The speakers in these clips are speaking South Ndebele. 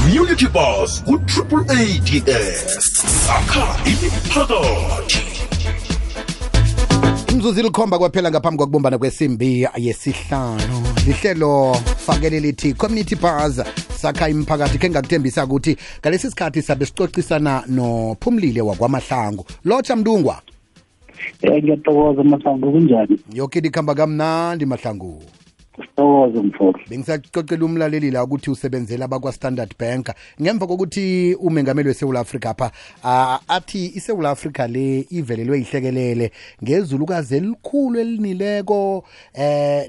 Community Bus ku AAADS sakha imiphakathi. Imzuzu ilikhomba kwaphela ngaphambi kokubumbana kwesimbi yesihlanu. Lihlelo fakele lithi Community Bus sakha imiphakathi ke ngakuthembisa ukuthi ngalesi sikhathi sabe sicocisana noPhumlile wakwaMahlangu. Lotsha Mdungwa. Ngiyathokoza Mahlangu kunjani? Yonke likhamba kamnandi Mahlangu. Sithokoze mfowethu. Bengisacocela umlaleli la ukuthi usebenzela abakwa Standard Bank ngemva kokuthi umengameli weSouth Africa apha athi iSouth Africa le ivelelwe ihlekelele ngezulukazi elikhulu elinileko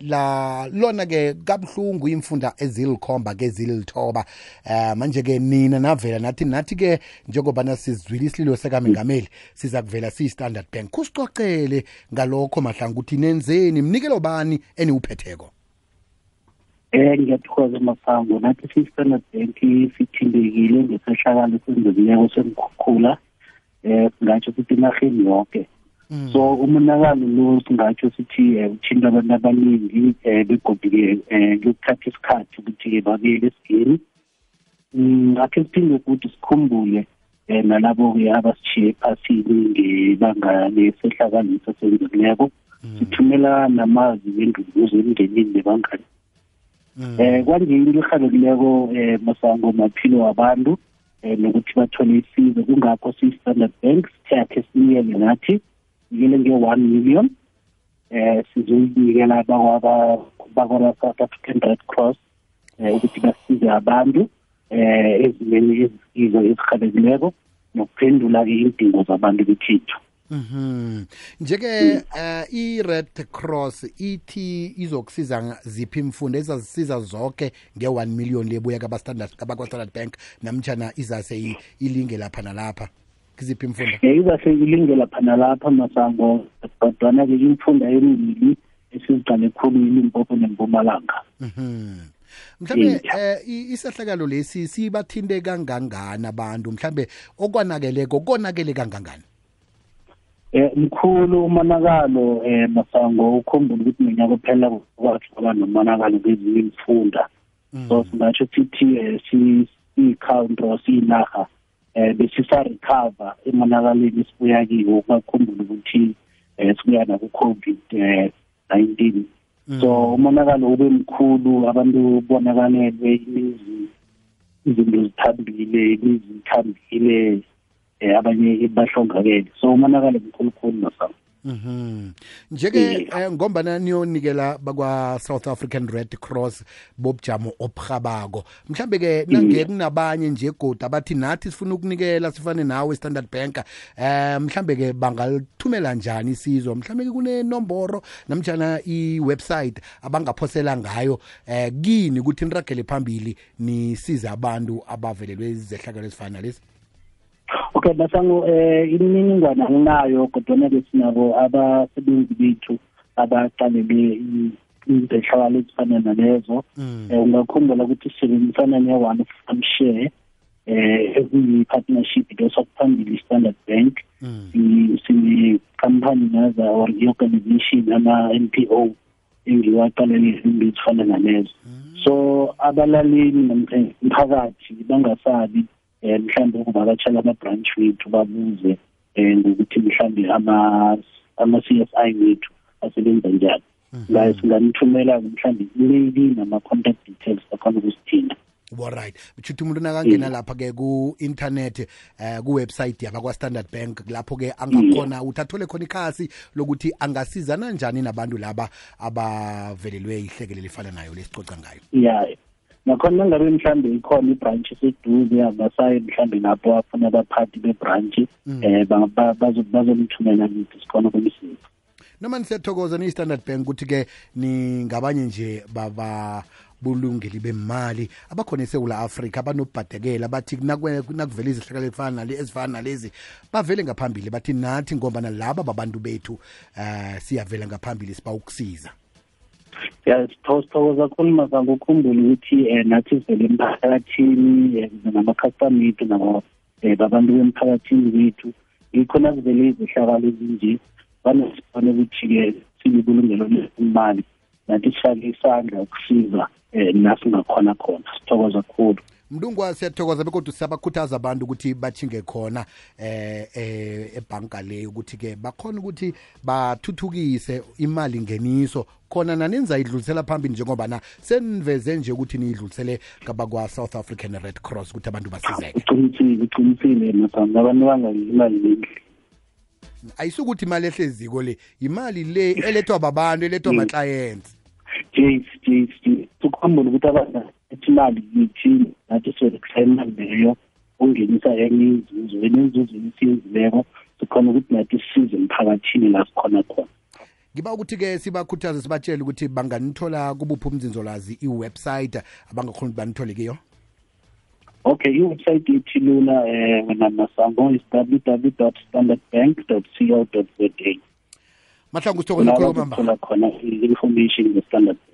la lona ke kabuhlungu imfunda ezilikhomba ke zilithoba manje ke nina navela nathi ke njengoba nasizwile isililo sekamengameli siza kuvela siyiStandard Bank kusicocele ngalokho Mahlangu ukuthi nenzeni mnikelo bani eniuphetheko. Ngiyathokoza Mahlangu nathi siStandard Bank sithindekile ngesehlakalo sendleko semkhukhula singatsho sithi enarheni yonke. So umonakalo lo singatsho sithi uthinta abantu abaningi begodike ngokuthatha isikhathi ukuthi babuyele esigeni. Akhe siphinde ukuthi sikhumbule nalabo ke abasishiye phasini ngebanga lesehlakalo sendleko. Sithumela namazi ngenduduzo emndenini nebangani. Kwanje into ehalekileko Masango maphilo wabantu nokuthi bathole isizo kungakho siStandard Bank sithathe sinikele nathi nikele nge-1 million sizoyinikela bakwa South African Red Cross ukuthi basize abantu ezimeni ezizo ezihalekileko nokuphendula ke idingo zabantu bekhethu. Njeke i-Red Cross ithi izokusiza ziphi imfundo ezazisiza zonke nge-1 million lebuya kabakwa-Standard Bank namtjana izase ilinge lapha nalapha kiziphi imfundo? Izase ilinge lapha nalapha Masango kodwana ke imfundo emibili esiziqale khulu iLimpopo neMpumalanga. Mhlambe isehlakalo lesi sibathinte kangangani abantu mhlambe okwanakeleko konakele kangangani? Mkhulu umonakalo Masango ukhumbula ukuthi minyaka phela kwathi kwaba nomonakalo kwezinye imfunda. So singatsho sithi si-country sinaha besisa recover emonakaleni sibuya kiwo bakhumbula ukuthi sibuya na ku-COVID-19. So umonakalo ube mkhulu abantu bonakalelwe izinto zithambile abanye bahlongakele so umonakalo mkhulu Masango. Njeke ngombana niyonikela bakwa South African Red Cross bobujamo obukhabako mhlambe ke nange kunabanye nje goda abathi nathi sifuna ukunikela sifane nawe Standard Bank mhlambe ke bangalithumela njani isizo mhlambe ke kunenomboro namtjana iwebsite abangaphosela ngayo kini ukuthi niragele phambili nisiza abantu abavelelwe izehlakalo ezifana lezi? Okay Masango imininingwane anginayo kodwa ke sinabo abasebenzi bethu abaqalele izehlakalo ezifana nalezo. Ungakhumbula ukuthi sisebenzisana ne-One Farm Share eziyi-partnership lesokuphambili iStandard Bank sine-company naza or i-organization ama-NPO engiwaqalele izinto ezifana nalezo. So abalaleli nomphakathi bangasabi mhlambe ukuvakatshela ama-branch wethu babuze ngokuthi mhlambe ama-CSI wethu asebenza njani. La singanithumela mhlambe i-mail nama-contact details akhona ukusithinta. Alright. Uthi umuntu nakangena lapha ke ku-internet ku-website yabakwa-Standard Bank lapho ke angakhona uthathole khona ikhasi lokuthi angasizana njani nabantu laba abavelelwe ihlekelele lifana nayo lesicoca ngayo. Yeah. Nakhona ngabe mhlambe ikhona ibranch eseduze abasayi mhlambe lapho afuna abaphathi bebranch bazomthumela ngithi sikhona ukumsiza. Noma nisiyathokoza ni-Standard Bank ukuthi ke ningabanye nje bulungeli bemali abakhona eSouth Africa abanobhadekela bathi nakuvela izehlakalo ezifana nalezi bavele ngaphambili bathi nathi ngoba nalaba babantu bethu siyavela ngaphambili siba ukusiza. Sithokoza kakhulu Masango ukhumbule ukuthi nathi sivele emphakathini nama-customer ethu nabantu bemphakathini bethu ikhona kuvele izehlakalo ezinje banesifane ukuthi-ke silibulungelo lemali nathi sifake isandla ukusiza nasingakhona khona. Sithokoza kakhulu. Mndungwa siyathokoza bekodwa siyabakhuthaza abantu ukuthi bathinge khona ebhanka le ukuthi ke bakhona ukuthi bathuthukise imali ngeniso khona naninza idlulisela phambili njengoba na seniveze nje ukuthi niyidlulisele kabakwa South African Red Cross ukuthi abantu basizeke. Uqinisile masana abantu bangayi imali nendle. Ayisukuthi imali ehleziko le imali le elethwa babantu elethwa ama clients. Sukuhamba ukuthi abantu imali yithi nathi sokuhlayela leyo ungenisa enye inzuzo esiyenzileko sikhona ukuthi nathi sisize emphakathini la sikhona khona. Ngiba ukuthi-ke sibakhuthaze sibatshele ukuthi banganithola kubuphi umzinzolazi iwebsite abangakhona ukuthi banithole kiyo. Okay, iwebsite yethu lula wena Masango is www.standardbank.co.za. Mahlangu sithokoze khulu kwamambala. Khona information nge-Standard Bank.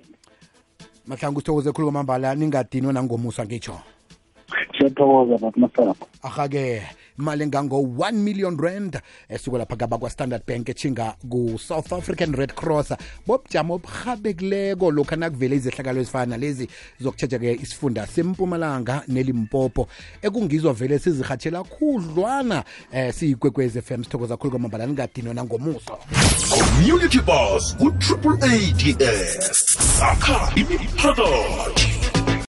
Mahlangu sithokoze khulu kwamambala ningadinwa nangomusa ngitsho. Siyathokoza bathi Masango. Aha-ke imali engango-1 million rand esuka lapha kabakwa Standard Bank echinga ku-South African Red Cross bobujamo oburhabekileko lokhu nakuvele izehlakalo ezifana lezi zokutjheja-ke isifunda sempumalanga nelimpopo ekungizwa vele sizirhatshela khudlwana siyigwegwez FM sithokoza khulu kwamambala ningadinwa nangomuso. Community Bus ku-AADS sakha imiphakathi.